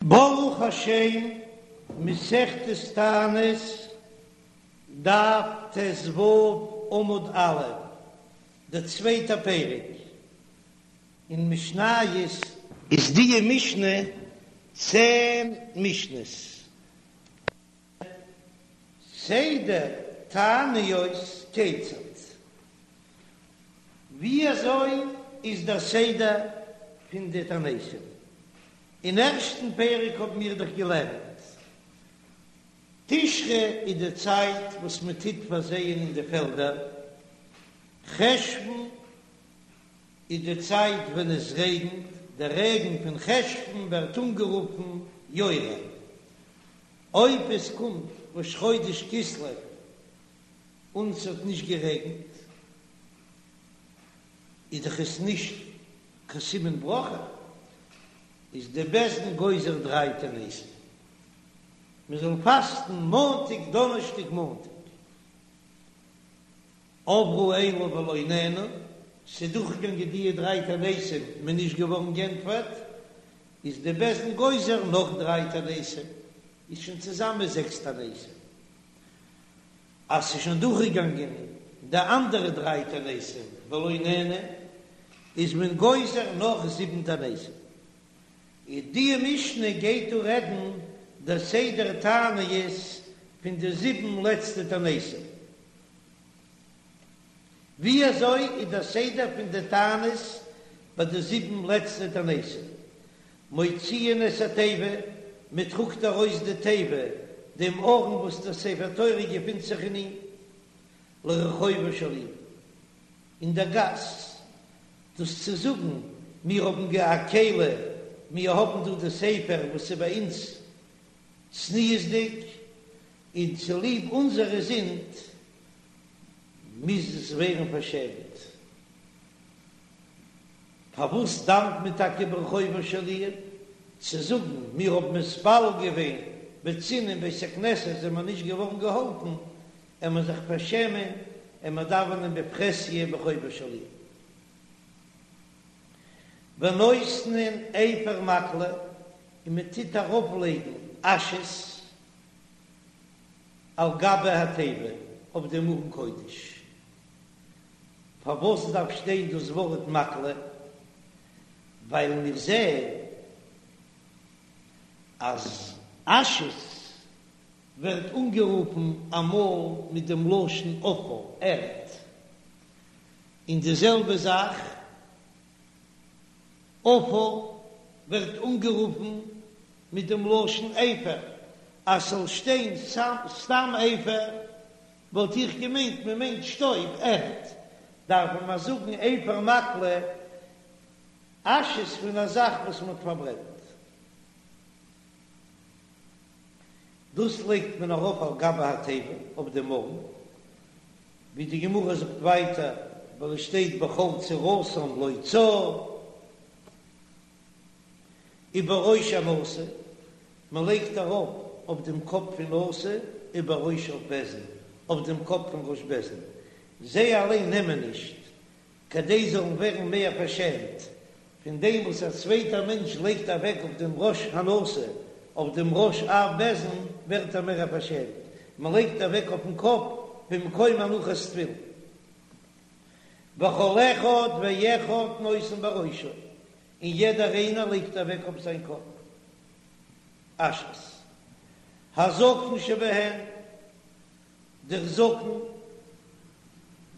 ברוך השם, מסכת תענית, דף ט"ו עמוד א', דער צווייטער פרק אין משניות. איז דיע משנה צען משניות. סדר תעניות כיצד? ווי אזוי איז דער סדר פון די תעניתים? אין ערשטן פרק האבן מיר דאך געלערנט, תשרי איז די צייט וואס מען טוט פארזייען אין די פעלדער, חשוון איז די צייט ווען עס רעגנט, דער רעגן פון חשוון ווערט אנגערופן יורה, אויב עס קומט ראש חודש כסלו און ס'האט נישט גערעגנט, איז דאך עס נישט קיין סימן ברכה, איז די בית דין גוזר דריי תעניתים, מען זאל פאסטן מאנטאג דאנערשטאג מאנטאג, עברו אלו ולא נענו, ס'איז דורכגעגאנגען דיע דריי תעניתים, מען איז נישט געווארן גענטפערט, איז די בית דין גוזר נאך דריי תעניתים, איז שוין צוזאמען זעקס תעניתים. אז ס'איז שוין דורכגעגאנגען די אנדערע דריי תעניתים ולא נענו, איז מען גוזר נאך זיבן תעניתים. איז די משנה גייט דא רעדן די סדר תעניות פון די זיבן לעצטע תעניתים. ווי אזוי איז דער סדר פון די תענית ביי די זיבן לעצטע תעניתים? מוציאין את התיבה, מען טראגט ארויס די תיבה, דעם ארון וואס דער ספר תורה געפינט זיך אין אים, לרחובה של עיר, אין דער גאס, דאס צו זאגן, מיר האבן גע א כלי, מיר האבן דא די ספר וואס איז ביי אונז צניעות'דיג, און צוליב אונזערע זינד מוז עס ווערן פארשעמט. פארוואס דאוונט מען טאקע ברחובה של עיר? צו זאגן מיר האבן מתפלל געווען בצנעה אין בית הכנסת זענען מיר נישט געווארן געהאלפן, עמער זיך פארשעמען עמער דאווענען בפרהסיא ברחובה של עיר. ונותנין אפר מקלה, און מען טוט ארויף לייגן אשעס על גבי התיבה אויף דעם ארון קודש. פארוואס דארף שטיין דאס ווארט מקלה? ווייל מיר זעען אז אשעס ווערט אנגערופן אמאל מיט דעם לשון עפר, ערד, און די זעלבע זאך עפר ווערט אנגערופן מיט דעם לשון אפר, אז ס'זאל שטיין סתם אפר וואלט איך געמיינט מען מיינט שטויב, ערד, דארף מען זאגן אפר מקלה, אשעס פון א זאך וואס מען האט פארברענט. דאס לייגט מען ארויף על גבי התיבה אויף דעם ארון, ווי די גמרא זאגט ווייטער, ווייל עס שטייט בכל צרתם לו צר. ובראש הנשיא, מען לייגט ארויף אויף דעם קאפ פון נשיא, ובראש אב בית דין, אויף דעם קאפ פון ראש בית דין, זיי אליין נעמען נישט, כדי זאלן ווערן מער פארשעמט, פון דעם וואס א צווייטער מענטש לייגט אוועק אויף דעם ראש הנשיא, אויף דעם ראש אב בית דין, ווערט ער מער פארשעמט, מען לייגט אוועק אויפן קאפ במקום הנחת תפילין. וכל אחד ואחד נותן בראשו, און יעדער איינער לייגט אוועק אויף זיין קאפ אשעס. הזקן שבהן, דער זקן,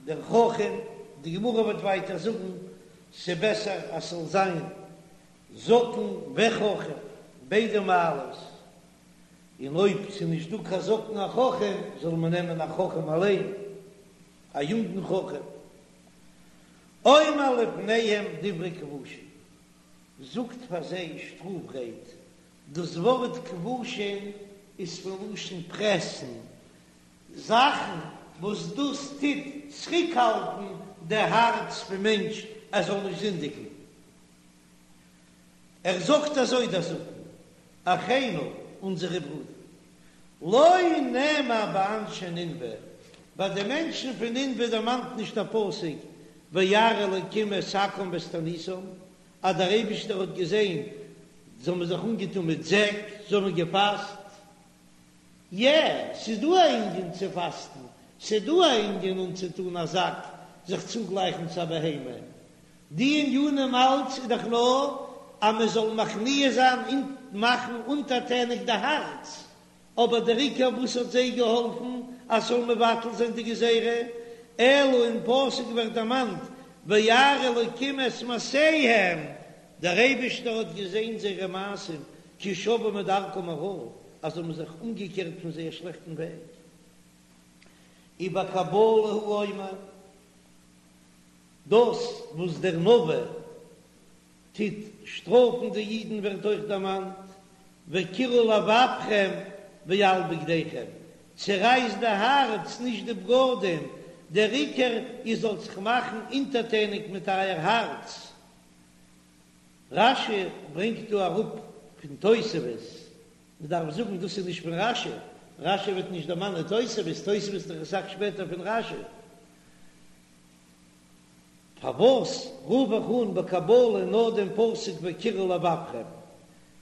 דער חכם, די גמרא וועט ווייטער זאגן, ס'בעסער אז ס'זאל זיין זקן וחכם, ביידע מעלות, און אויב ס'נישט דא קיין זקן א חכם, זאל מען נעמען א חכם אליין, א יונגן חכם. אומר לפניהם דברי כבושין, זאגט פאר זיי שטראף רייד, דאס ווארט כבושין איז פון לשון פרעסן, זאכן וואס דאס טוט צוריקהאלטן די הארץ פון מענטש ער זאל נישט זינדיגן. ער זאגט אזוי דער זקן, אחינו, אונזערע ברודער, לא נאמר באנשי נינוה, ביי די מענטשן פון נינוה דערמאנט נישט דער פסוק וירא אלקים את שקם ואת תעניתם, אז דער אייבישטער האט געזען. זיי האבן זיך אנגעטון מיט זעק, זיי האבן געפאסט. יע, ס'איז דא א ענין צו פאסטן, ס'איז דא א ענין אנצוטון א זאק, זיך צוגלייכן צו א בהמה. די ענינים אלץ איז דאך נאר אז מען זאל מכניע זיין און מאכן אונטערטעניג די הארץ, אבער דער עיקר וואס האט זיי געהאלפן אז ס'זאל מבטל זיין די גזירה, אלא אין פסוק ווערט דערמאנט וירא אלקים את מעשיהם, דער אייבישטער האט געזען זייערע מעשים, כי שבו מדרכם הרעה, אז זיי האבן זיך אומגעקערט פון זייער שלעכטן וועג. ובקבלה הוא אומר, דאס וואס דער נביא טוט שטראפן די אידן ווערט אויך דערמאנט, וקרעו לבבכם ואל בגדיכם, צערייסט די הארץ נישט די בגדים, דער עיקר איר זאלט זיך מאכן אונטערטעניג מיט אייער הארץ. רש"י ברענגט דא אראפ פון תוספות, מען דארף זאגן דאס איז נישט פון רש"י, רש"י וועט נישט דערמאנען תוספות, תוספות איז דאך אסאך שפעטער פון רש"י. פארוואס רוף איך אן בקבלה נאר דעם פסוק וקרעו לבבכם,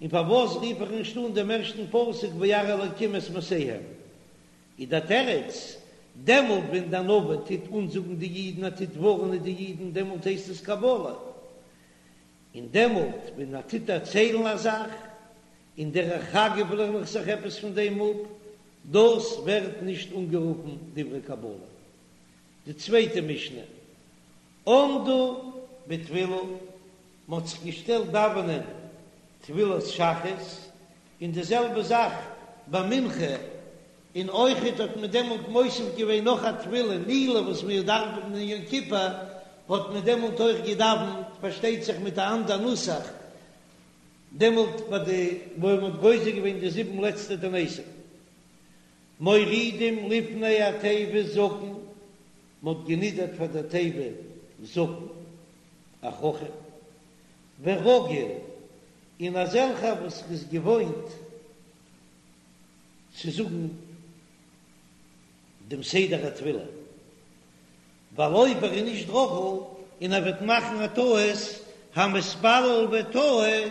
און פארוואס רוף איך נישט אן דעם ערשטן פסוק וירא אלקים את מעשיהם? איז דער תירוץ, דעמאלט ווען דער נביא טוט אנזאגן די אידן, ער טוט ווארענען די אידן, דעמאלט הייסט עס קבלה, און דעמאלט ווען ער טוט דערציילן א זאך, און דרך אגב לערן איך זיך עפעס פון דעם אפ, דאס ווערט נישט אנגערופן דברי קבלה. די צווייטע משנה, עמדו בתפילה, מען האט זיך געשטעלט דאווענען תפילת שחרית, און די זעלבע זאך ביי מנחה, און אויכעט האט מען דעמאלט מוסיף געווען נאך א תפילה נעילה וואס מיר דאווענען אין יום כיפור, האט מען דעמאלט אויך געדאווענט, פארשטייט זיך מיט א אנדער נוסח, דעמאלט ביי די וואו מען האט גוזר געווען די זיבן לעצטע תעניתים. מורידים לפני התיבה זקן, מען האט גענידערט פאר דער תיבה זקן, א חכם, ורגיל, און אזעלכער וואס איז געוואוינט צו זאגן דעם סדר התפילה, ווייל אויב ער איז נישט רגיל און ער וועט מאכן א טעות, המתפלל וטעה,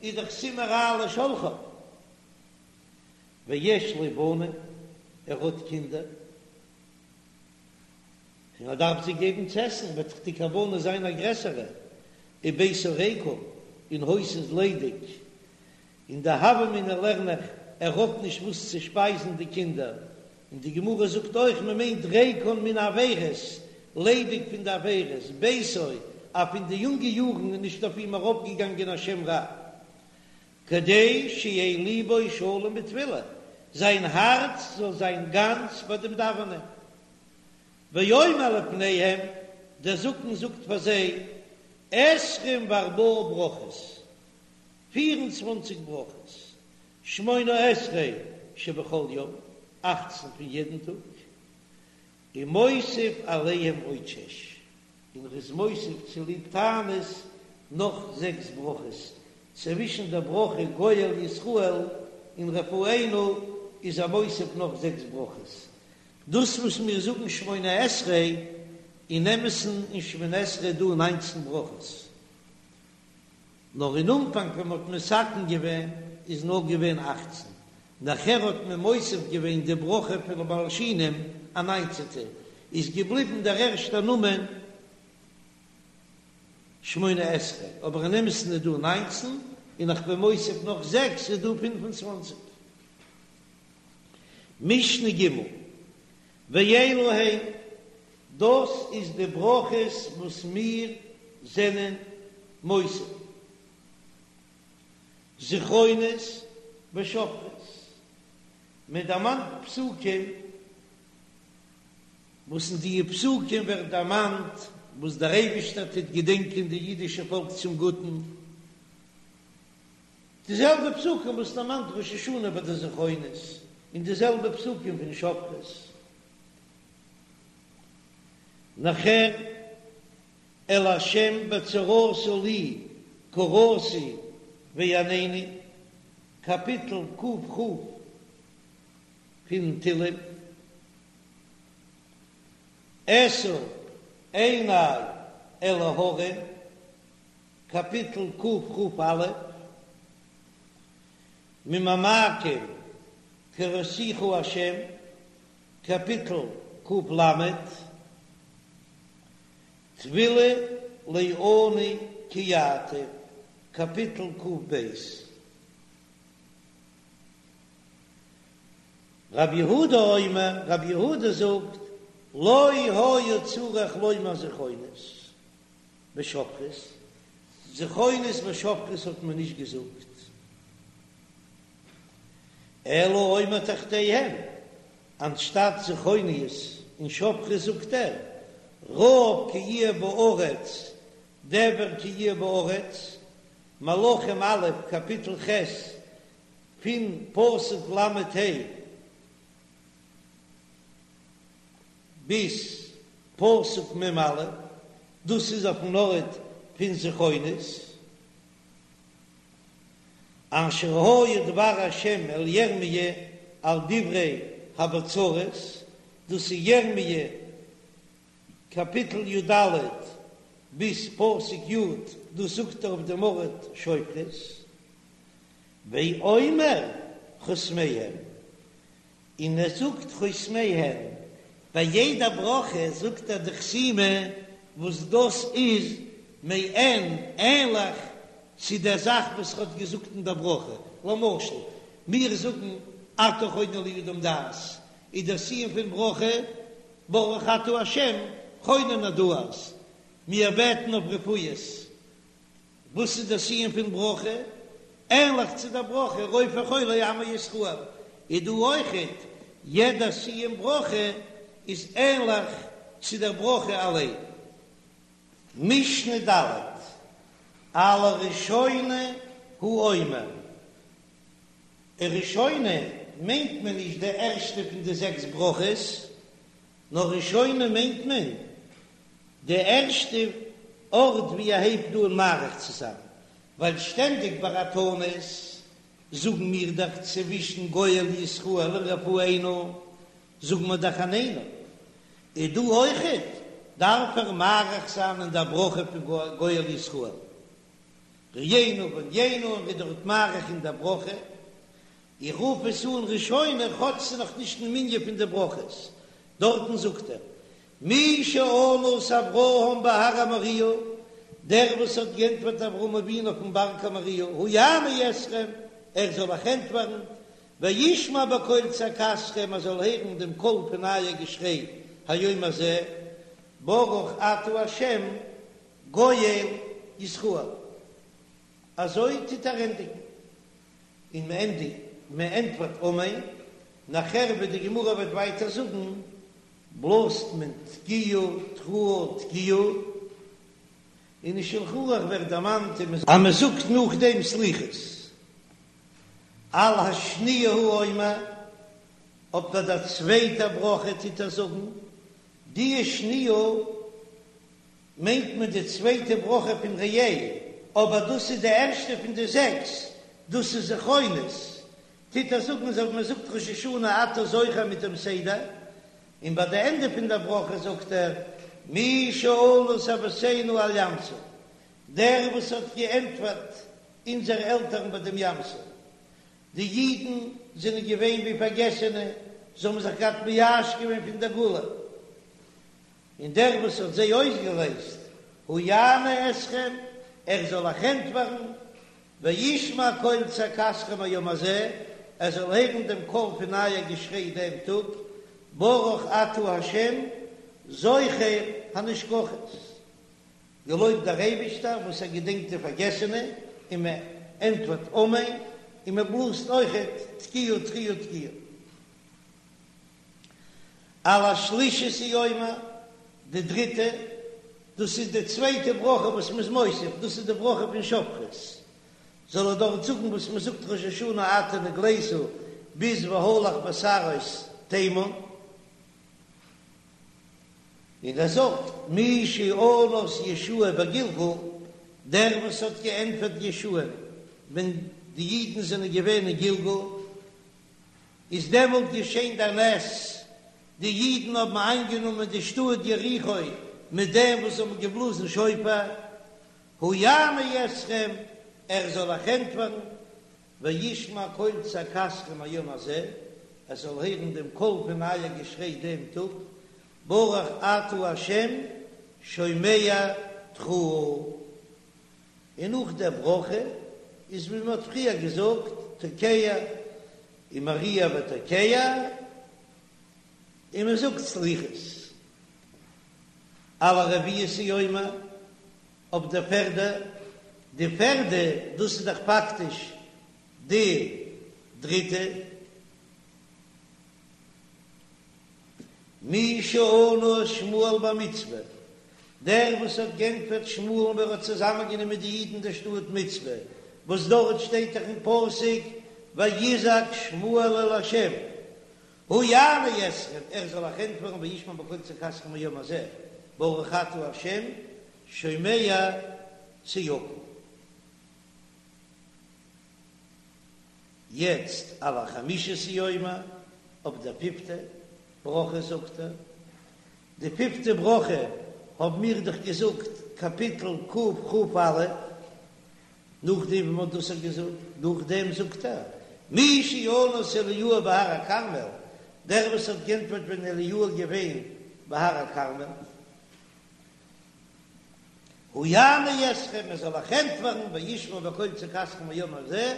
איז דאך סימן רע לשולחיו. ויש לו בנים, ער האט קינדער, און ער דארף זיי געבן צו עסן, וועט דאך די כוונה זיין א גרעסערע, וביתו ריקם, און הויז איז ליידיג, אין די הוה אמינא לערן איך, ער האט נישט וואס צו שפייזן די קינדער, און די גמרא זאגט אויך מען מיינט ריקן מן העבירות, ליידיג פון די עבירות, ביתו, אז פון די יונגע יארן איז נישט אויף אים ארויפגעגאנגען א שם רע. כדי שיהא ליבו שלם בתפילה, זיין הארץ זאל זיין גאנץ ביי דעם דאווענען. ואומר לפניהם, דער זקן זאגט פאר זיי, עשרים וארבעה ברכות, פיר און צוואנציג ברכות, שמונה עשרה שבכל יום, אכצן פון יעדן טאג, ומוסיף עליהם עוד שש, און ר'איז מוסיף צוליב תענית נאך זעקס ברכות, צווישן דער ברכה גואל ישראל און רפאנו איז ער מוסיף נאך זעקס ברכות. דאס וואס מיר זאגן שמונה עשרה, אין אמת'ן אין שמונה עשרה איז דא ניינצן ברכות, נאר אין אנפאנג ווען מ'האט מתקן געווען איז נאר געווען אכצן, נאכער האט מען מוסיף געווען די ברכה פון ולמלשינים א ניינצעטע, איז געבליבן דער ערשטער נאמען שמונה עשרה, אבער אין אמת'ן איז דא ניינצן, און איך בין מוסיף נאך זעקס איז דא פינף און צוואנציג. משנה ג', ואלו הן, דאס איז די ברכות וואס מיר זענען מוסיף, זכרונות ושופרות, מען דערמאנט פסוקים וואס אין די פסוקים ווערט דערמאנט וואס דער אייבישטער טוט געדענקען די אידישע פאלק צום גוטן, די זעלבע פסוקים וואס דערמאנט ראש השנה ביי די זכרונות, און די זעלבע פסוקים פון שופרות. נאכער אל ה' בצרתה לי קראתי ויענני, קאפיטל ק"כ פון תהלים, אשא עיני אל ההרים, קאפיטל קכ"א. ממעמקים קראתיך השם, קאפיטל ק"ל, תפילה לעני כי יעטוף, קאפיטל ק"ב. רב יהודה אומר, רב יהודה זאגט, לא היה צריך לומר זכרונות ושופרות, זכרונות ושופרות האט מען נישט געזאגט, אלא אומר תחתיהם, אנשטאט זכרונות און שופרות זאגט ער, רעב כי יהיה בארץ, דבר כי יהיה בארץ, מלכים א', קאפיטל ח', פון פסוק ל"ה ביז פסוק מ"א, דאס איז אויפן ארט פון זכרונות, אשר היה דבר השם אל ירמיה על דברי הבצורת, דאס איז ירמיה קאפיטל י"ד ביז פסוק י', דאס זאגט ער אויף דעם ארט שופרות. ואומר חותמיהן, און ער זאגט חותמיהן, ביי יעדע ברכה זאגט ער די חתימה וואס דאס איז מעין ענליך צו דער זאך וואס ער האט געזאגט אין דער ברכה, למשל מיר זאגן אתה חונן לאדם דעת, איז דער סיום פון ברכה ברוך אתה ה' חונן הדעת, מיר בעטן אויף רפואות, וואס איז דער סיום פון ברכה? ענליך צו דער ברכה רופא חולי עמו ישראל, איז דא אויכעט יעדע סיום ברכה איז ענליך צו דער ברכה אליין. משנה ד', על הראשונה הוא אומר, ראשונה מיינט מען נישט די ערשטע פון די זעקס ברכות, נאר ראשונה מיינט מען די ערשטע ארט ווי ער הייבט אן מאריך צו זיין, ווייל שטענדיג ביי א תענית זאגן מיר דאך צווישן גואל ישראל און רפאנו זאגן מיר דאך עננו, איז דא אויכעט דארף ער מאריך זיין אין דער ברכה פון גואל ישראל, רעינו וענינו און ווי דארט מאריך אין דער ברכה, איך רוף עס אן ראשונה כאטש ס'איז נאך נישט אין מנין פון די ברכות, דארטן זאגט ער מי שענה את אברהם בהר המוריה, דער וואס האט גענטפערט אברהם אבינו אויפן בארג המוריה, הוא יענה אתכם, ער זאל אייך ענטפערן, וישמע בקול צעקתכם, ער זאל הערן דעם קול פון אייער געשריי, היום הזה, ברוך אתה ה' גואל ישראל. אזוי טוט ער ענדיגן. און מען ענדיגט, מען ענטפערט אמן, נאכער ווי די גמרא וועט ווייטער זאגן, בלאזט מען תקיעה תרועה תקיעה, און אין שלחן ערוך ווערט דערמאנט אז מען זאגט נאכדעם סליחות, על השניה הוא אומר, אויף ביי דער צווייטער ברכה טוט ער זאגן, די שניה מיינט מען די צווייטע ברכה פון ראה, אבער דאס איז די ערשטע פון די זעקס, דאס איז זכרונות, טוט ער זאגן אזוי ווי מען זאגט ראש השנה אתה זוכר מיט דעם סדר, און ביי די ענדע פון דער ברכה זאגט ער מי שענה את אבותינו על ים סוף, דער וואס האט געענטפערט אונזערע עלטערן ביי דעם ים סוף, די אידן זענען געווען ווי פארגעסענע, זיי האבן זיך געהאט מייאש געווען פון דער גאולה. און דער וואס האט זיי אויסגעלייזט, הוא יענה אתכם, ער זאל אייך ענטפערן, וישמע קול צעקתכם היום הזה, ער זאל הערן דעם קול פון אייער געשריי דעם טאג, ברוך אתה ה', זוכר הנשכחות, געלויבט דער אייבישטער וואס ער געדענקט די פארגעסענע, און מען ענטפערט אמן, און מען בלאזט אויכעט תקיעה תרועה תקיעה. על השלישית הוא אומר, די דריטע, דאס איז די צווייטע ברכה וואס מ'איז מוסיף, דאס איז די ברכה פון שופרות, זאל ער דארט זאגן וואס מ'זאגט ראש השנה אתה נגלית ביז והלך בסערות תימן, און ער זאגט מי שענה את יהושע בגלגל, דער וואס האט געענטפערט יהושע'ן ווען די אידן זענען געווען אין גלגל, איז דעמאלט געשען דער נס, די אידן האבן איינגענומען די שטאט יריחו מיט דעם וואס זיי האבן געבלאזן שופר, הוא יענה אתכם, ער זאל אייך ענטפערן, וישמע קול צעקתכם היום הזה, עס זאל הערן דעם קול פון אייער געשריי דעם טאג, ברוך אתה ה' שומע תרועה. און נאך דער ברכה איז ווי מען האט פריער געזאגט תוקע און מריע ותוקע, און מען זאגט סליחות על הרביעית הוא אומר אויף די פערדע, די פערדע דאס איז דאך פאקטיש די דריטע. מי שענה את שמואל במצפה, דער וואס האט גענטפערט שמואל'ן ווען ער האט צוזאמענגענומען די אידן אין דער שטאט מצפה, וואס דארט שטייט דאך אין פסוק ויזעק שמואל אל ה', הוא יענה אתכם, ער זאל אייך ענטפערן וישמע בקול צעקתכם היום הזה, ברוך אתה ה' שומע צעקה. יעצט על החמישית הוא אומר, אויף דער פיפטע ברכה זאגט ער, די פיפטע ברכה האבן מיר דאך געזאגט קאפיטל קכ"א, נאכדעם ווי מען האט דאס געזאגט, נאכדעם זאגט ער, מי שענה את אליהו בהר הכרמל, דער וואס האט גענטפערט ווען אליהו איז געווען בהר הכרמל, הוא יענה אתכם, ער זאל אייך ענטפערן, וישמע בקול צעקתכם היום הזה,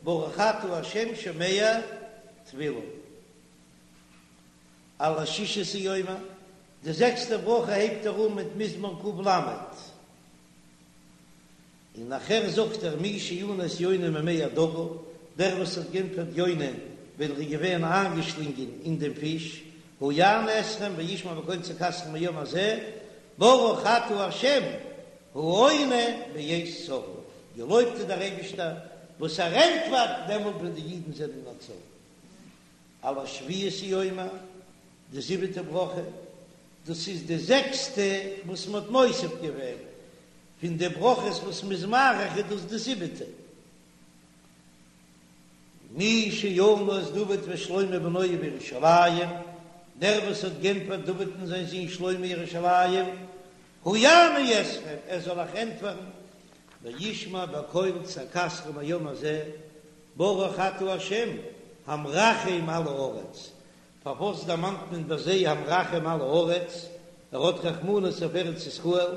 ברוך אתה ה' שומע תפילה. על השישית הוא אומר, די זעקסטע ברכה הייבט ער אן מיט מזמור ק"ל. און נאכער זאגט ער מי שענה את יונה ממעי הדגה, דער וואס האט גענטפערט יונה ווען ער איז געווען איינגעשלינגען אין דעם פיש, הוא יענה אתכם וישמע בקול צעקתכם היום הזה, ברוך אתה ה' העונה בעת צרה, געלויבט איז דער אייבישטער וואס ער ענטפערט דעמאלט ווען די אידן זענען אין א צרה. על השביעית הוא אומר, די זיבעטע ברכה, דאס איז די זעקסטע וואס מען האט מוסיף געווען, פון די ברכות וואס מ'איז מאריך איז דאס די זיבעטע. מי שענה את דוד ושלמה בנו בירושלים, דער וואס האט גענטפערט דוד און זיין זון שלמה אין ירושלים, הוא יענה אתכם, ער זאל אייך ענטפערן, וישמע בקול צעקתכם היום הזה, ברוך אתה ה' המרחם על הארץ, פארוואס דערמאנט מען ביי זיי המרחם על הארץ, ער האט רחמנות אויף ארץ ישראל,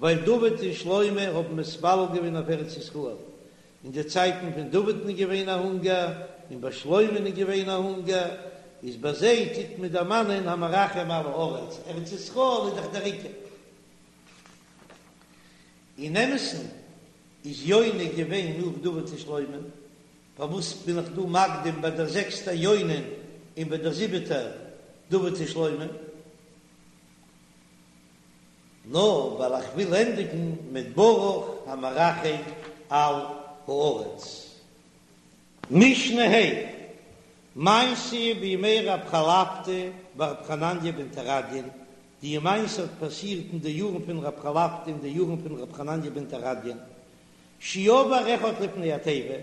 ווייל דוד און שלמה האבן מתפלל געווען אויף ארץ ישראל, אין די צייטן פון דוד'ן איז געווען א הונגער, און ביי שלמה'ן איז געווען א הונגער, איז ביי זיי טוט מען דערמאנען המרחם על הארץ, ארץ ישראל איז דאך דער עיקר. אין אמת'ן איז יונה געווען נאך דוד און שלמה, פארוואס בין איך דא מקדים ביי דער זעקסטער יונה און ביי דער זיבעטער דוד און שלמה? נאר ווייל איך וויל ענדיגן מיט ברוך המרחם על הארץ. משנה ה', מעשה בימי רב חלפתא ורב חנניה בן תרדיון, די מעשה האט פאסירט אין די יארן פון רב חלפתא און די יארן פון רב חנניה בן תרדיון, שעבר אחד לפני התיבה,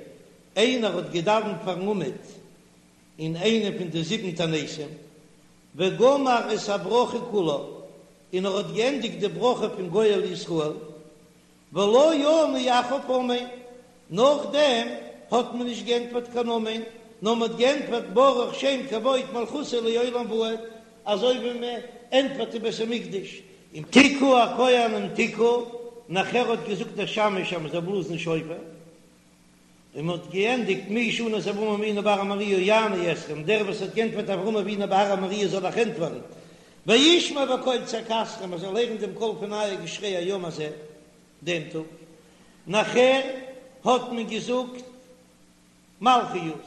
איינער האט געדאווענט פארן עמוד אין איינע פון די זיבן תעניתים, וגמר את הברכה כולה, און ער האט געענדיגט די ברכה פון גואל ישראל, ולא ענו אחריו אמן, נאכדעם האט מען נישט געענטפערט קיין אמן, נאר מען האט געענטפערט ברוך שם כבוד מלכותו לעולם ועד, אזוי ווי מען ענטפערט אין בית המקדש, און תקעו הכהנים תקעו, נאכער האט געזאגט דער שמש אז מען זאל בלאזן שופר, און מען האט געענדיגט מי שענה את אברהם אבינו בהר המוריה יענה אתכם, דער וואס האט געענטפערט אברהם אבינו בהר המוריה זאל אייך ענטפערן, וישמע בקול צעקתכם, מען זאל הערן דעם קול פון אייער געשריי היום הזה, דעם טאג. נאכער האט מען געזאגט מלכיות,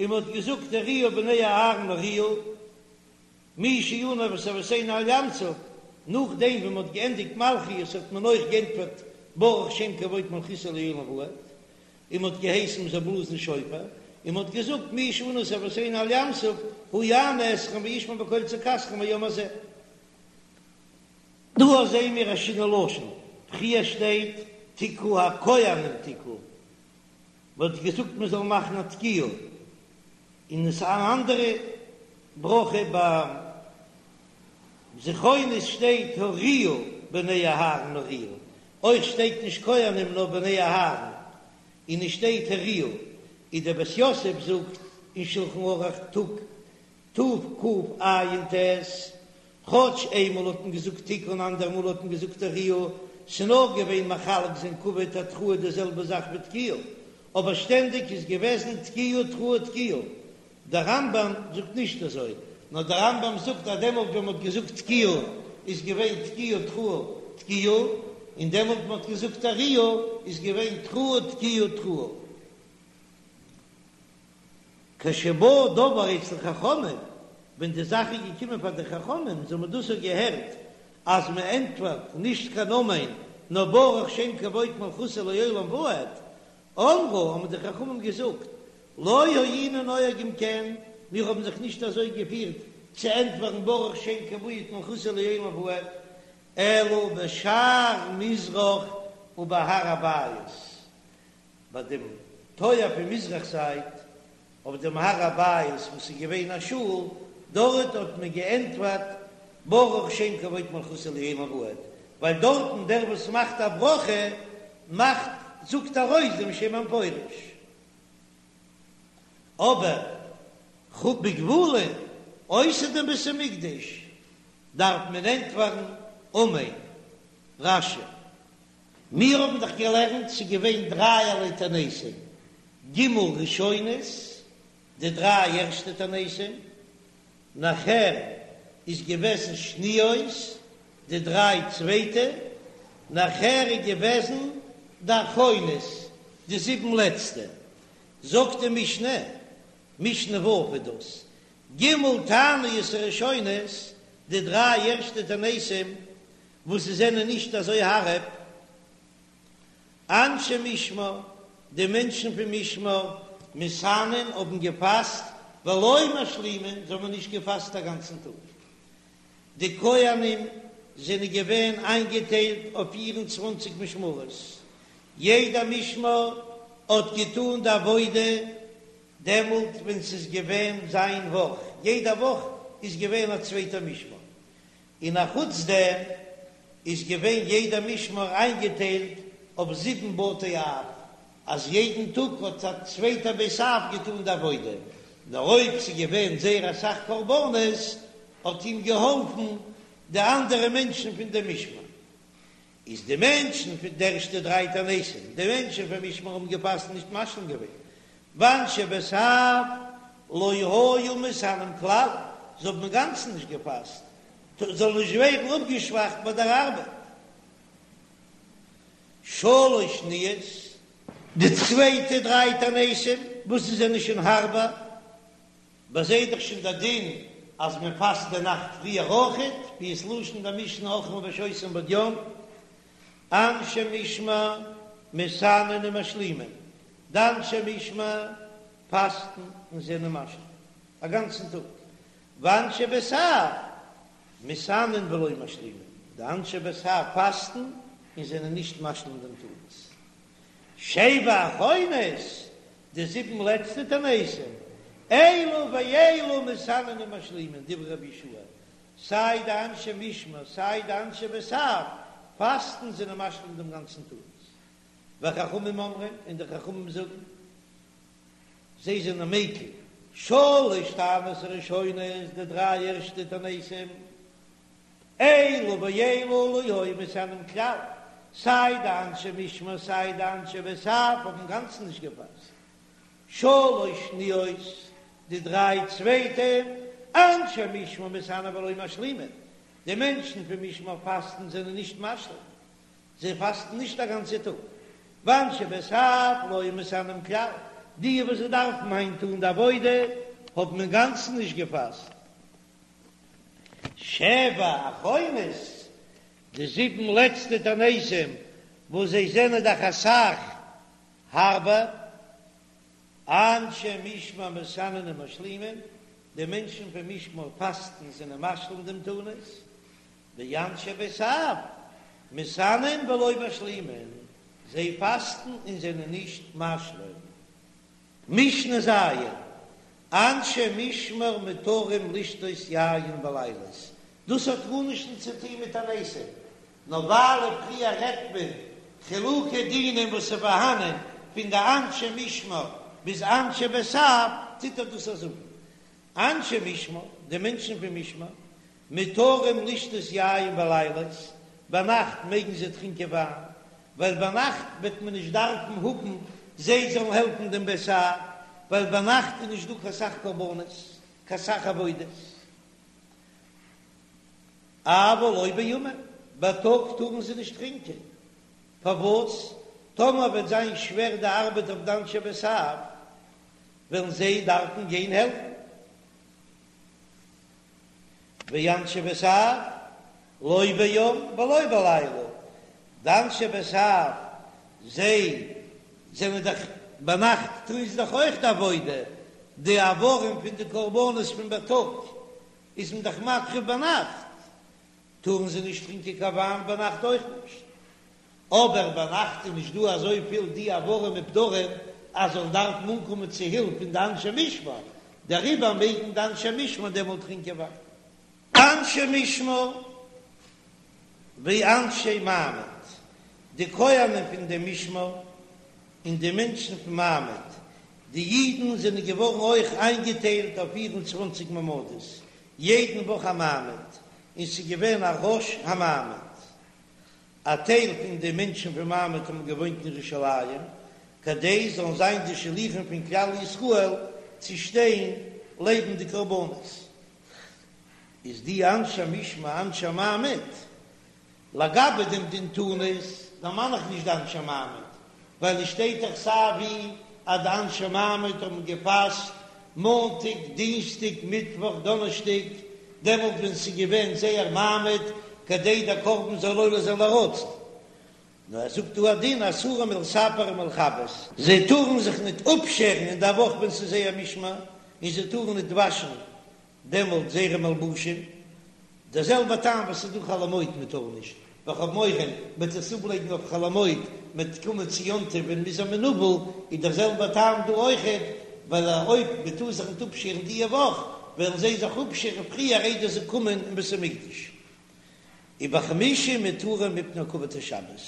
און מען האט געזאגט הריעו בני אהרן הריעו, מי שענה את אבותינו על ים סוף, נאכדעם ווען מען האט געענדיגט מלכיות האט מען אויך גענטפערט ברוך שם כבוד מלכותו לעולם ועד, און מען האט געהייסן מען זאל בלאזן שופר, און מען האט געזאגט מי שענה את אבותינו על ים סוף הוא יענה אתכם וישמע בקול צעקתכם היום הזה. דא זעהן מיר א שינוי לשון, פריער שטייט תקעו הכהנים תקעו, מען האט געזאגט מען זאל מאכן א תקיעה, און עס איז אן אנדערע ברכה ביי זכרונות שטייט הריעו בני אהרן הריעו, אויך שטייט נישט כהנים נאר בני אהרן, און עס שטייט הריעו. איז דער בית יוסף זאגט אין שלחן ערוך תקע"ט, כאטש איינמאל האט מען געזאגט תקעו און אנדער מאל האט מען געזאגט תריעו, ס'נאר געווען מחלק זיין כבוד התרועה די זעלבע זאך ווי תקיעה, אבער שטענדיג איז געוועזן תקיעה תרועה תקיעה. דער רמב"ם זאגט נישט אזוי, נאר דער רמב"ם זאגט אז דעמאלט ווען מ'האט געזאגט תקיעה איז געווען תקיעה תרועה תקיעה, און דעמאלט ווען מ'האט געזאגט תריעו איז געווען תרועה תקיעה תרועה. כשבא דבר אצל חכמים, ווען די זאך איז געקומען פאר די חכמים, זיי האבן דאס געהערט אז מען ענטפערט נישט קיין אמן, נאר ברוך שם כבוד מלכותו לעולם ועד, אמרו, האבן די חכמים געזאגט, לא היינו נוהגים כן, מיר האבן זיך נישט אזוי געפירט צו ענטפערן ברוך שם כבוד מלכותו לעולם ועד, אלא בשער מזרח ובהר הבית, ביי דעם טויער פון מזרח זייט, אויף דעם הר הבית וואס איז געווען א שול, דארט האט מען געענטפערט ברוך שם כבוד מלכותו לעולם ועד, ווייל דארטן דער וואס מאכט א ברכה מאכט זאגט ארויס דעם שם המפורש. אבער בגבולין אויסער דעם בית המקדש דארף מען ענטפערן אמן. רש"י. מיר האבן דאך געלערנט ס'איז געווען דרייערליי תעניתים, ג' ראשונות, די דריי ערשטע תעניתים, נאכער איז געוועזן שניות, די דריי צווייטע, נאכער איז געוועזן די אחרונות, די זיבן לעצטע. זאגט די משנה, משנה ו' איז דאס, ג' תעניות הראשונות, די דריי ערשטע תעניתים, וואס זיי זענען נישט אזוי הארב, אנשי משמר, די מענטשן פון משמר, מתענין האבן געפאסט, ולא משלימין, זיי האבן נישט געפאסט א גאנצן טאג. די כהנים זענען געווען איינגעטיילט אויף פיר און צוואנציג משמרות, יעדע משמר האט געטאן די עבודה דעמאלט ווען ס'איז געווען זיין וואך, יעדע וואך איז געווען א צווייטע משמר, און א חוץ דעם איז געווען יעדע משמר איינגעטיילט אויף זיבן בתי אב, אז יעדן טאג האט א צווייטע בית אב געטאן די עבודה, נאר אויב ס'איז געווען זייער אסאך קרבנות האט אים געהאלפן די אנדערע מענטשן פון דעם משמר. איז די מענטשן פון די ערשטע דריי תעניתים, די מענטשן פון משמר האבן געפאסט נישט משלים געווען, ואנשי בית אב לא היו מתענין כלל, זיי האבן אינגאנצן נישט געפאסט, זאל נישט ווערן אפגעשוואכט ביי דער ארבעט. שלש שניות, די צווייטע דריי תעניתים, וואס זיי זענען שוין הארבער, ביי זיי איז דאך שוין דער דין אז מען פאסט די נאכט פריער אויכעט, ווי עס לשון די משנה אוכלין ושותין בעוד יום, אנשי משמר מתענין ומשלימין, די אנשי משמר פאסטן און זענען משלים א גאנצן טאג, ואנשי בית אב מתענין ולא משלימין, די אנשי בית אב פאסטן און זענען נישט משלים דעם תענית. שבע אחרונות, די זיבן לעצטע תעניתים, אלו ואלו מתענין ומשלימין, דברי רבי יהושע, סיי די אנשי משמר סיי די אנשי בית אב פאסטן זענען משלים דעם גאנצן תענית. וחכמים אומרים, און די חכמים זאגן, זיי זענען מקיל, שלש תעניות הראשונות, די דריי ערשטע תעניתים, אלו ואלו לא היו מתענין כלל, סיי די אנשי משמר סיי די אנשי בית אב האבן אינגאנצן נישט געפאסט. שלש שניות, די דריי צווייטע, אנשי משמר מתענין ולא משלימין, די מענטשן פון משמר פאסטן זענען נישט משלים, זיי פאסטן נישט א גאנצע טאג. ואנשי בית אב לא היו מתענין כלל, די וואס זיי דארפן היינט טון די עבודה האבן אינגאנצן נישט געפאסט. שבע אחרונות, די זיבן לעצטע תעניתים וואס זיי זענען דאך אסאך הארבער. אנשי משמר מתענין ומשלימין, די מענטשן פון משמר פאסטן זענען משלים דעם תענית, ואנשי בית אב מתענין ולא משלימין, זיי פאסטן און זענען נישט משלים. משנה ז', אנשי משמר מותרים לשתות יין בלילות, דאס האט גארנישט צו טון מיט תעניתים, נאר ווייל פריער רעדט מען חילוקי דינים וואס איז פארהאנען פון די אנשי משמר. ביז אנשי בית אב טוט ער דאס זאגן. אנשי משמר, די מענטשן פון משמר, מותרים לשתות יין בלילות, ביינאכט מעגן זיי טרינקען וויין, ווייל ביינאכט וועט מען נישט דארפן האבן זיי זאלן העלפן דעם בית אב, ווייל ביינאכט איז נישט דא קיין סך קרבנות, קיין סך עבודות. אבל לא בימם, בייטאג טארן זיי נישט טרינקען, פארוואס? טאמער וועט זיין שווער די ארבעט אויף די אנשי בית אב, וועלן זיי דארפן גיין העלפן. ואנשי בית אב לא ביום ולא בלילה, די אנשי בית אב זיי זענען דאך ביינאכט טוען זיי דאך אויך די עבודה, די איברים פון די קרבנות פון בייטאג איז מען דאך מקריב ביינאכט, טארן זיי נישט טרינקען קיין וויין ביינאכט אויך נישט. אבער ביינאכט איז נישט דא אזויפיל די איברים ופדרים אז זאלן דארפן אנקומען צו הילף פון די אנשי משמר, דעריבער מעגן די אנשי משמר דעמאלט טרינקען וויין. אנשי משמר ואנשי מעמד, די כהנים פון דעם משמר און די מענטשן פון מעמד, די אידן זענען געווארן אויך איינגעטיילט אויף פיר און צוואנציג מעמדות, יעדן וואך א מעמד, און ס'איז געווען א ראש המעמד. א טייל פון די מענטשן פון מעמד האבן געוואוינט אין ירושלים, כדי זאלן זיין די שליחים פון כלל ישראל צו שטיין לעבן די קרבנות. איז די אנשי משמר אנשי מעמד, לגבי דעם דין תענית דערמאן איך נישט די אנשי מעמד, ווייל עס שטייט דאך סיי ווי אז די אנשי מעמד האבן געפאסט מאנטאג, דינסטאג, מיטוואך, דאנערשטאג, דעמאלט ווען ס'איז געווען זייער מעמד, כדי דער קרבן זאל עולה זיין לרצון. נאר ער זאגט דא א דין אסורים מלספר ומלכבס, זיי טארן זיך ניט אפשערן אין דער וואך ווען ס'איז זייער משמר, און זיי טארן ניט וואשן דעמאלט זייערע מלבושים, דער זעלבער טעם וואס איז דא חול המועד מען טאר נישט, ווייל כ'האב מורא מ'וועט עס אפלייגן אויף חול המועד, מ'וועט קומען צו יום טוב און מ'איז א מנוול, איז דער זעלבער טעם דא אויכעט, ווייל אויב מען טאר זיך ניט אפשערן דיע וואך, וועלן זיי זיך אפשערן פריער איידער זיי קומען אין בית המקדש. ובחמישי מותרים מפני כבוד השבת,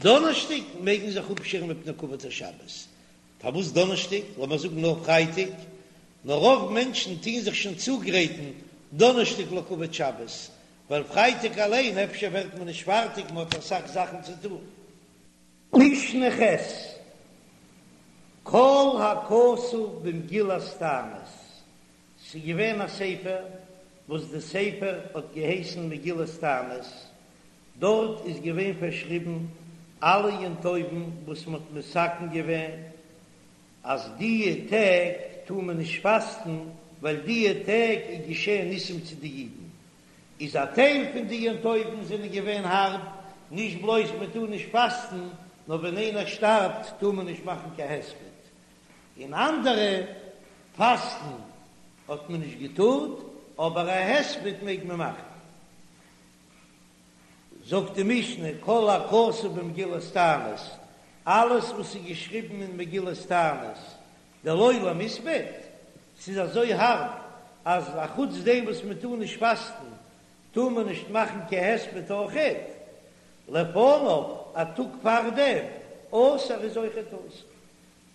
דאנערשטאג מעג מען זיך אפשערן מפני כבוד השבת, פארוואס דאנערשטאג? לאמיר זאגן נאר פרייטאג, נאר רוב מענטשן טוהן זיך שוין צוגרייטן דאנערשטאג לכבוד שבת, ווייל פרייטאג אליין אפשר ווערט מען נישט פארטיג, מען האט אסאך זאכן צו טון. משנה ח', כל הכתוב במגילת תענית, ס'איז געווען א ספר וואס די ספר האט געהייסן מגילת תענית, דארט איז געווען פארשריבן אלע יום טובים וואס מען האט מתקן געווען אז דיע טעג טאר מען נישט פאסטן ווייל דיע טעג איז געשען ניסים צו די אידן, איז א טייל פון די יום טובים זענען געווען הארב, נישט בלויז מען טאר נישט פאסטן, נאר ווען איינער שטארבט טאר מען נישט מאכן קיין הספד, און אנדערע פאסטן האט מען נישט געטארט, אבער א הספד מעג מען מאכן. זאגט די משנה, כל הכתוב במגילת תענית, אלעס וואס איז געשריבן אין מגילת תענית, דלא למספד, ס'איז אזוי הארב אז אחוץ דעם וואס מען טאר נישט פאסטן, טאר מען נישט מאכן קיין הספד אויכעט, לפניו, א טאג פארדעם, אסור איז אויכעט אסור,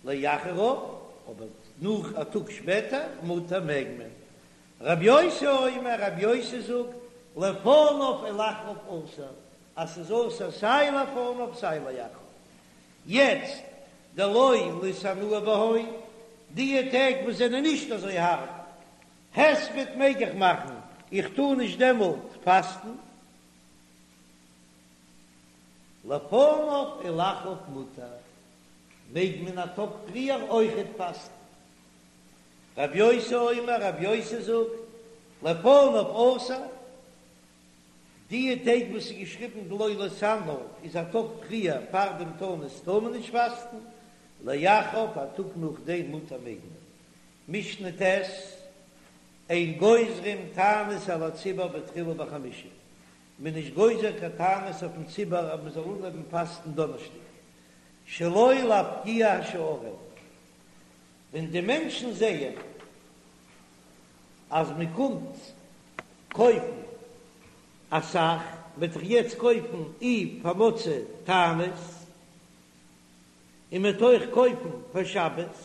לאחריו, אבער נאך א טאג שפעטער, מותר מעג מען. רבי יוסי אומר, רבי יוסי זאגט, לפניו ולאחריו אסור, אז ס'איז אסור סיי לפניו סיי לאחריו. יעצט, דלא להתענאה בהון, דיע טעג וואס זענען נישט אזוי הארב, הספד מעג איך מאכן, איך טאר נישט דעמאלט פאסטן. לפניו ולאחריו מותר, מעג מען א טאג פריער אויכעט פאסטן. רב יוסי אומר, רב יוסי זאגט, לפניו אסור, דיע טעג וואס איז געשריבן דלא להתענאה איז א טאג פריער פאר דעם תענית טאר מען נישט פאסטן, לאחריו א טאג נאכדעם מותר מעג מען. משנה ט', אין גוזרים תענית על הציבור בתחילה בחמישי, מען איז נישט גוזר קיין תענית אויפן ציבור אז מען זאל אנהויבן פאסטן דאנערשטאג, שלא להפקיע השערים, ווען די מענטשן זעען אז מען קומט קויפן אסאך, וועט איך יעצט קויפן אי פאר מוצאי תענית, און מען וועט אויך קויפן פאר שבת.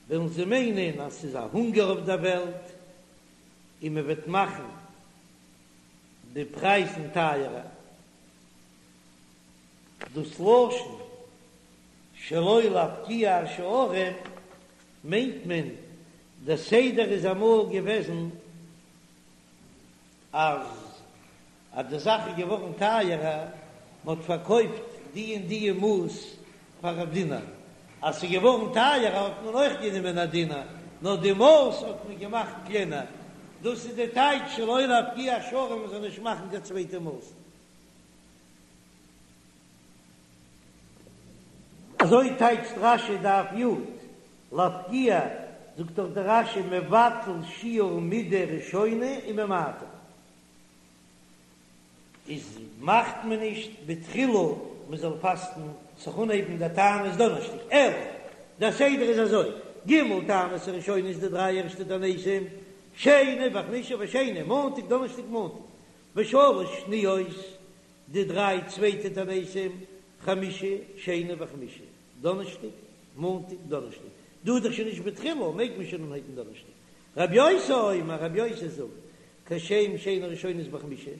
וועלן זיי מיינען אז ס'איז א הונגער אויף דער וועלט און מען וועט מאכן די פרייזן טייערער. דאס לשון שלא להפקיע השערים מיינט מען, דער סדר איז אמאל געוועזן אז אז די זאך איז געווארן טייערער, מען האט פארקויפט די און די מאס פאר א דינר, אז ס'איז געווארן טייערער האט מען אויך גענומען א דינר, נאר די מאס האט מען געמאכט קלענער, דאס איז די טייטש שלא להפקיע השערים מען זאל נישט מאכן קיין צווייטע מאס. אזוי טייטשט רש"י דף י', להפקיע, זאגט דאך דער רש"י מבטל שיעור מידה ראשונה וממעטה, איז מאכט מען נישט בתחילה מען זאל פאסטן זיך אנהייבן די תענית דאנערשטאג, אלא דער סדר איז אזוי, ג' תעניות הראשונות די דריי ערשטע תעניתים, שני וחמישי ושני, מאנטאג דאנערשטאג מאנטאג, ושלש שניות די דריי צווייטע תעניתים, חמישי, שני וחמישי, דאנערשטאג, מאנטאג, דאנערשטאג. דא איז דאך שוין נישט בתחילה, מעג מען שוין אנהייבן דאנערשטאג. רבי יוסי אומר, רבי יוסי זאגט, כשם שאין הראשונות בחמישי,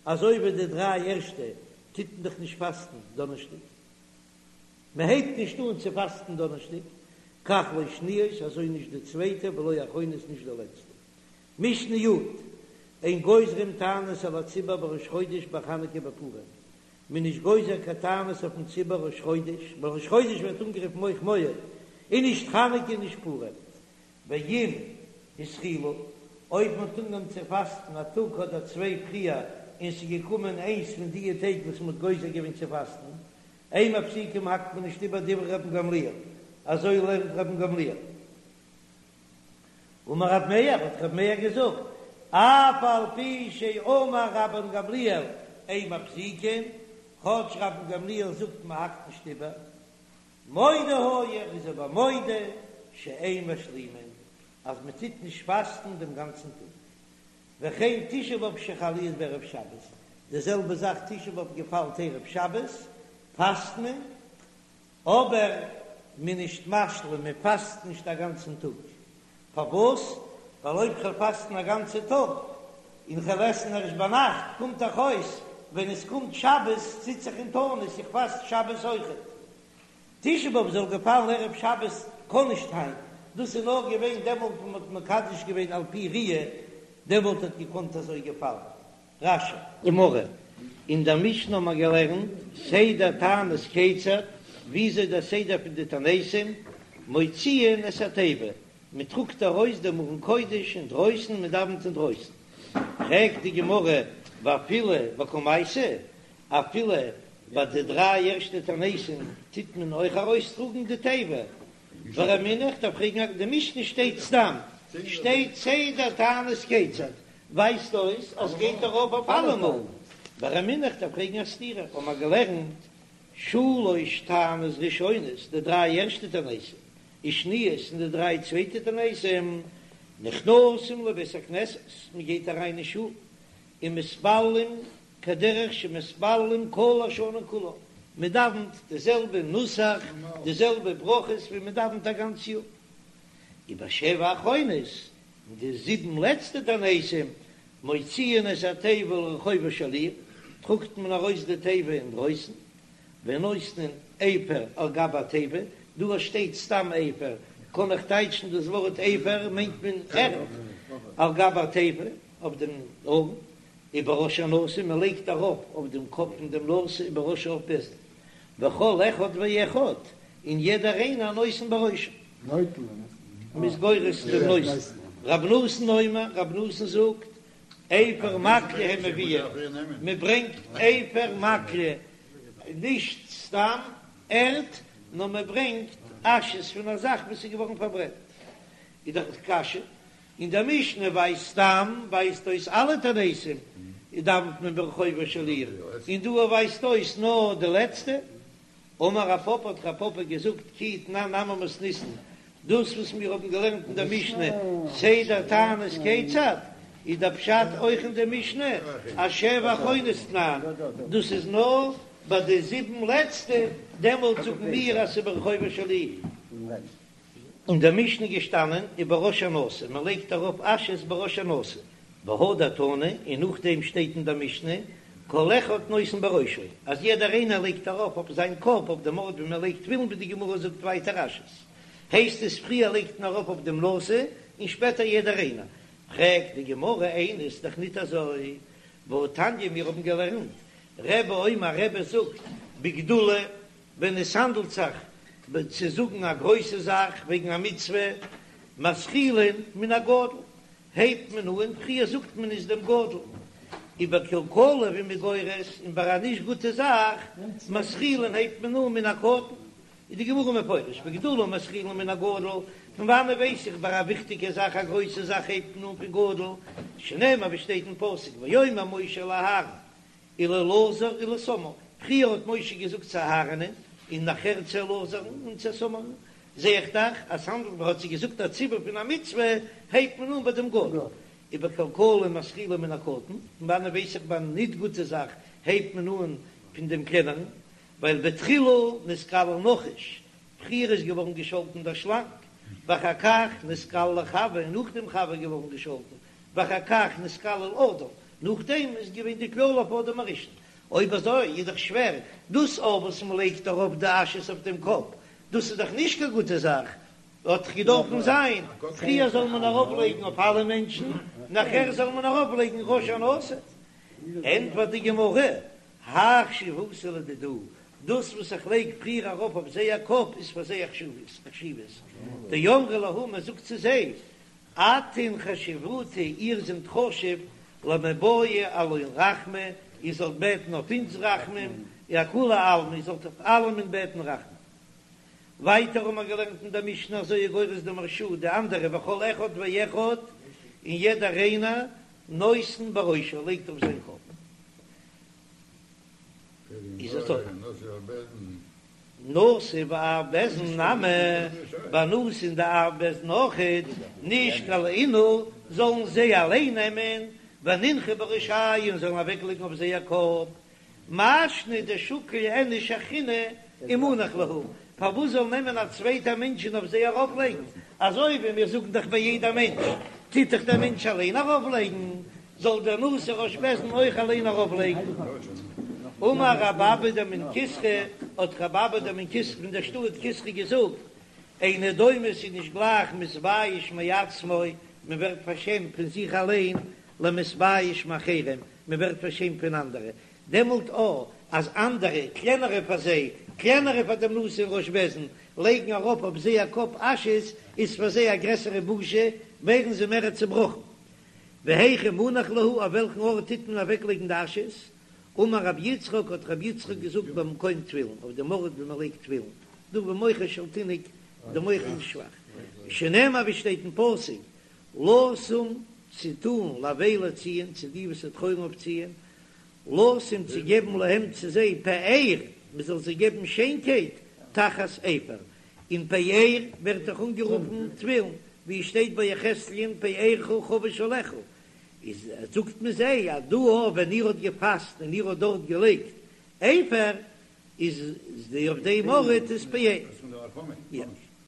אזוי ווי די דריי ערשטע טוט מען דאך נישט פאסטן דאנערשטאג, מען הייבט נישט אן צו פאסטן דאנערשטאג, כך לא שניות, אזוי נישט די צווייטע, ולא אחרונות נישט די לעצטע. משנה י', אין גוזרים תענית על הציבור בראש חודש בחנוכה בפורים, מען איז נישט גוזר קיין תענית אויפן ציבור ראש חודש, ווייל ראש חודש ווערט אנגערופן אויך מועד, און נישט חנוכה און נישט פורים. ואם התחילו, אויב מען האט אנגעהויבן צו פאסטן א טאג אדער צוויי פריער און ס'איז געקומען איינס פון דיע טעג וואס מען האט גוזר געווען צו פאסטן, אין מפסיקים האקט מען נישט איבער דברי רבן גמליאל, אזוי לערנט רבן גמליאל. אמר רב מאיר, האט רב מאיר געזאגט, אף על פי שאמר רבן גמליאל אין מפסיקין, כאטש רבן גמליאל זאגט מען האקט נישט איבער, מודה היה, ער איז אבער מודה שאין משלימין, אז מען טוט נישט פאסטן דעם גאנצן טאג. וכן תשעה באב שחל להיות בערב שבת, די זעלבע זאך תשעה באב געפאלט ערב שבת, פאסט מען, אבער מען נישט משלים, מען פאסט נישט א גאנצן טאג, פארוואס? ווייל אויב כ'וועל פאסטן א גאנצע טאג, און כ'וועל עסן ערשט ביינאכט, קומט דאך אויס ווען עס קומט שבת זיץ איך אין תענית, איך פאסט שבת אויכעט. תשעה באב זאל געפאלן ערב שבת קען נישט היינט, דאס איז נאר געווען דעמאלט ווען מען האט מקדש געווען על פי ראיה, דעמאלט האט געקאנט אזוי געפאלן. רש"י. גמרא, אין דער משנה האבן מיר געלערנט סדר תענית כיצד, וויאזוי דער סדר פון די תעניתים, מוציאין את התיבה, מען טראגט ארויס דעם ארון קודש אינדרויסן, מען דאווענט אינדרויסן. פרעגט די גמרא, ואפילו בקמייתא, אפילו ביי די דריי ערשטע תעניתים טוט מען אויך ארויסטראגן די תיבה? ורמינהו, איך דארף פרעגן, די משנה שטייט סתם, שטייט סדר תענית כיצד, ווייזט אויס אז גייט ארויף אויף אלעמאל. ורמינהו, איך דארף פרעגן א סתירה, האבן מיר געלערנט שלש תעניות ראשונות, די דריי ערשטע תעניתים, ושניות און די דריי צווייטע תעניתים, נכנסים לבית הכנסת, מען גייט אריין אין שול, ומתפללים כדרך שמתפללים כל השנה כולה, מען דאווענט די זעלבע נוסח, די זעלבע ברכות ווי מען דאווענט א גאנץ יאר. ובשבע האחרונות, אין די זיבן לעצטע תעניתים, מוציאין את התיבה לרחובה של עיר, טראגט מען ארויס די תיבה אינדרויסן, ונותנין אפר על גבי התיבה, דא שטייט סתם אפר, קען איך טייטשן דאס ווארט אפר מיינט מען ערד, על גבי התיבה, אויף דעם ארון, ובראש הנשיא, מען לייגט ארויף אויף דעם קאפ פון דעם נשיא ובראש אב בית דין, וכל אחד ואחד, און יעדער איינער נותן בראשו. מ'איז גורס דעם נותן. רב נתן אומר, רב נתן זאגט, אפר מקלה הן מביאין, מען ברענגט אפר מקלה, נישט סתם ערד, נאר מען ברענגט אשעס פון א זאך וואס איז געווארן פארברענט. איז דאך קשיא, אין דער משנה ווייזט סתם ווייזט אויס אלע תעניתים דאווענט מען ברחובה של עיר, און דא ווייזט אויס נאר די לעצטע. אמר רב פפא האט רב פפא געזאגט כי תנן נמי מתניתין, דאס וואס מיר האבן געלערנט אין דער משנה סדר תענית כיצד, איז דער פשט אויך אין דער משנה אשבע אחרונות תנן, דאס איז נאר ביי די זיבן לעצטע, דעמאלט זאגן מיר אז ס'איז ברחובה של עיר. אין דער משנה געשטאנען ובראש הנשיא, מען לייגט ארויף אשעס בראש הנשיא, והדר תנא, און נאכדעם שטייט אין דער משנה כל אחד נותן בראשו, אז יעדער איינער לייגט ארויף אויף זיין קאפ אויף דעם ארט ווי מען לייגט תפילין ווי די גמרא זאגט ווייטער אשעס, הייסט עס פריער לייגט מען ארויף אויף דעם נשיא און שפעטער יעדער איינער, פרעגט די גמרא איני איז דאך ניט אזוי, והתניא מיר האבן געלערנט רבי אומר רבי זאגט בגדולה ווען עס האנדלט זיך צו זאגן א גרויסע זאך וועגן א מצוה, מתחילין מן הגדול, הייבט מען אן, פריער זאגט מען עס דעם גדול, ובקלקלה ווי מען גורס, און ביי א נישט גוטע זאך, מתחילין הייבט מען אן מן הקטן, איז די גמרא מפרש, בגדולה מתחילין מן הגדול, פון וואנען ווייס איך ביי א וויכטיגע זאך א גרויסע זאך הייבט מען אן פון גדול, שנאמר ווי שטייט אין פסוק ויאמר משה אל אהרן ולאלעזר ולאיתמר, פריער האט משה געזאגט צו אהרנ'ען און נאכער צו אלעזר'ן און צו איתמר'ן, זע איך דאך אז ס'האנדלט מען האט זיי געזאגט א ציווי פון א מצוה, הייבט מען אן ביי דעם גדול, ובקלקלה מתחילין מן הקטן, פון וואנען ווייס איך ביי א ניט גוטע זאך הייבט מען אן פון דעם קלענערן, ווייל בתחילה נתקלל נחש, פריער איז געווארן געשאלטן דער שלאנג, ואחר כך נתקללה חוה, און נאכדעם חוה איז געווארן געשאלטן, ואחר כך נתקלל אדם, נאכדעם איז געווען די קללה אויף אדם הראשון. אויב אזוי איז דאך שווער, דאס אויף וואס מען לייגט ארויף די אשעס אויף דעם קאפ, דאס איז דאך נישט קיין גוטע זאך, האט דאך געדארפן זיין, פריער זאל מען ארויף לייגן אויף אלע מענטשן, נאכער זאל מען ארויף לייגן ראש הנשיא. ענטפערט די גמרא, האי חשיבותא לדידהו, דאס וואס איך לייג פריער ארויף אויף זייער קאפ איז פאר זיי א חשיבות, דאמרי להו מען זאגט צו זיי, אתון חשיבותו, איר זענט חשוב, למיבעי עלן רחמי, איר זאלט בעטן אויף אונז רחמים, ואכולי עלמא, איר זאלט אויף אלעמען בעטן רחמים. ווייטער האבן מיר געלערנט אין דער משנה אזוי איז גורס דער מהרש"א, די אנדערע וכל אחד ואחד, און יעדער איינער, נותן בראשו, לייגט אויף זיין קאפ. איז אזוי. נשיא ואב בית דין נמי, ביי נשיא און די אב בית דין אויכעט, נישקול אינהו, זאלן זיי אליין נעמען, ונינחו בראשייהו און זאלן אוועקלייגן אויף זייער קאפ, מאי שנא דשקיל איניש אחרינא ומנח להו, פארוואס זאל נעמען א צווייטער מענטש און אויף זיי ארויפלייגן, אזוי ווי מיר זאגן דאך ביי יעדע מענטש, טוט דאך דער מענטש אליין ארויפלייגן, זאל דער נשיא ראש בית דין אויך אליין ארויפלייגן. אמר רב אבא דמן כסרא, האט רב אבא דמן כסרא פון דער שטאט כסרא געזאגט, אינו דומה ס'איז נישט גלייך מתבייש מעצמו, מען ווערט פארשעמט פון זיך אליין, למתבייש מאחרים, מען ווערט פארשעמט פון אנדערע, דעמאלט או אז אנדערע, קלענערע פאר זיי, קלענערע פאר דעם נשיא און ראש בית דין, לייגן ארויף אויף זייער קאפ אשעס, איז פאר זיי א גרעסערע בושה, ווערן זיי מער צעבראכן. והיכא מנח להו, אויף וועלכן ארט טוט מען אוועקלייגן די אשעס? אמר רבי יצחק, האט רבי יצחק געזאגט במקום תפילין, אויף דעם ארט ווי מען לייגט תפילין, דא במוחו של תינוק, די מח איז שוואך, שנאמר ווי שטייט אין פסוק, לשום צו טאן לאבלי ציון, צו די וואס טרויערן אויף ציון, לשום צו געבן להם צו זיי פאר, מען זאל זיי געבן שיינקייט, תחת אפר, און פאר ווערט דאך אנגערופן תפילין, ווי עס שטייט ביי יחזקאל'ן פארך חבוש עליך, איז זאגט מען זיי אז דא אויך ווען איר האט געפאסט און איר האט דארט געלייגט אפר, איז די אויף דעם ארט איז פאר.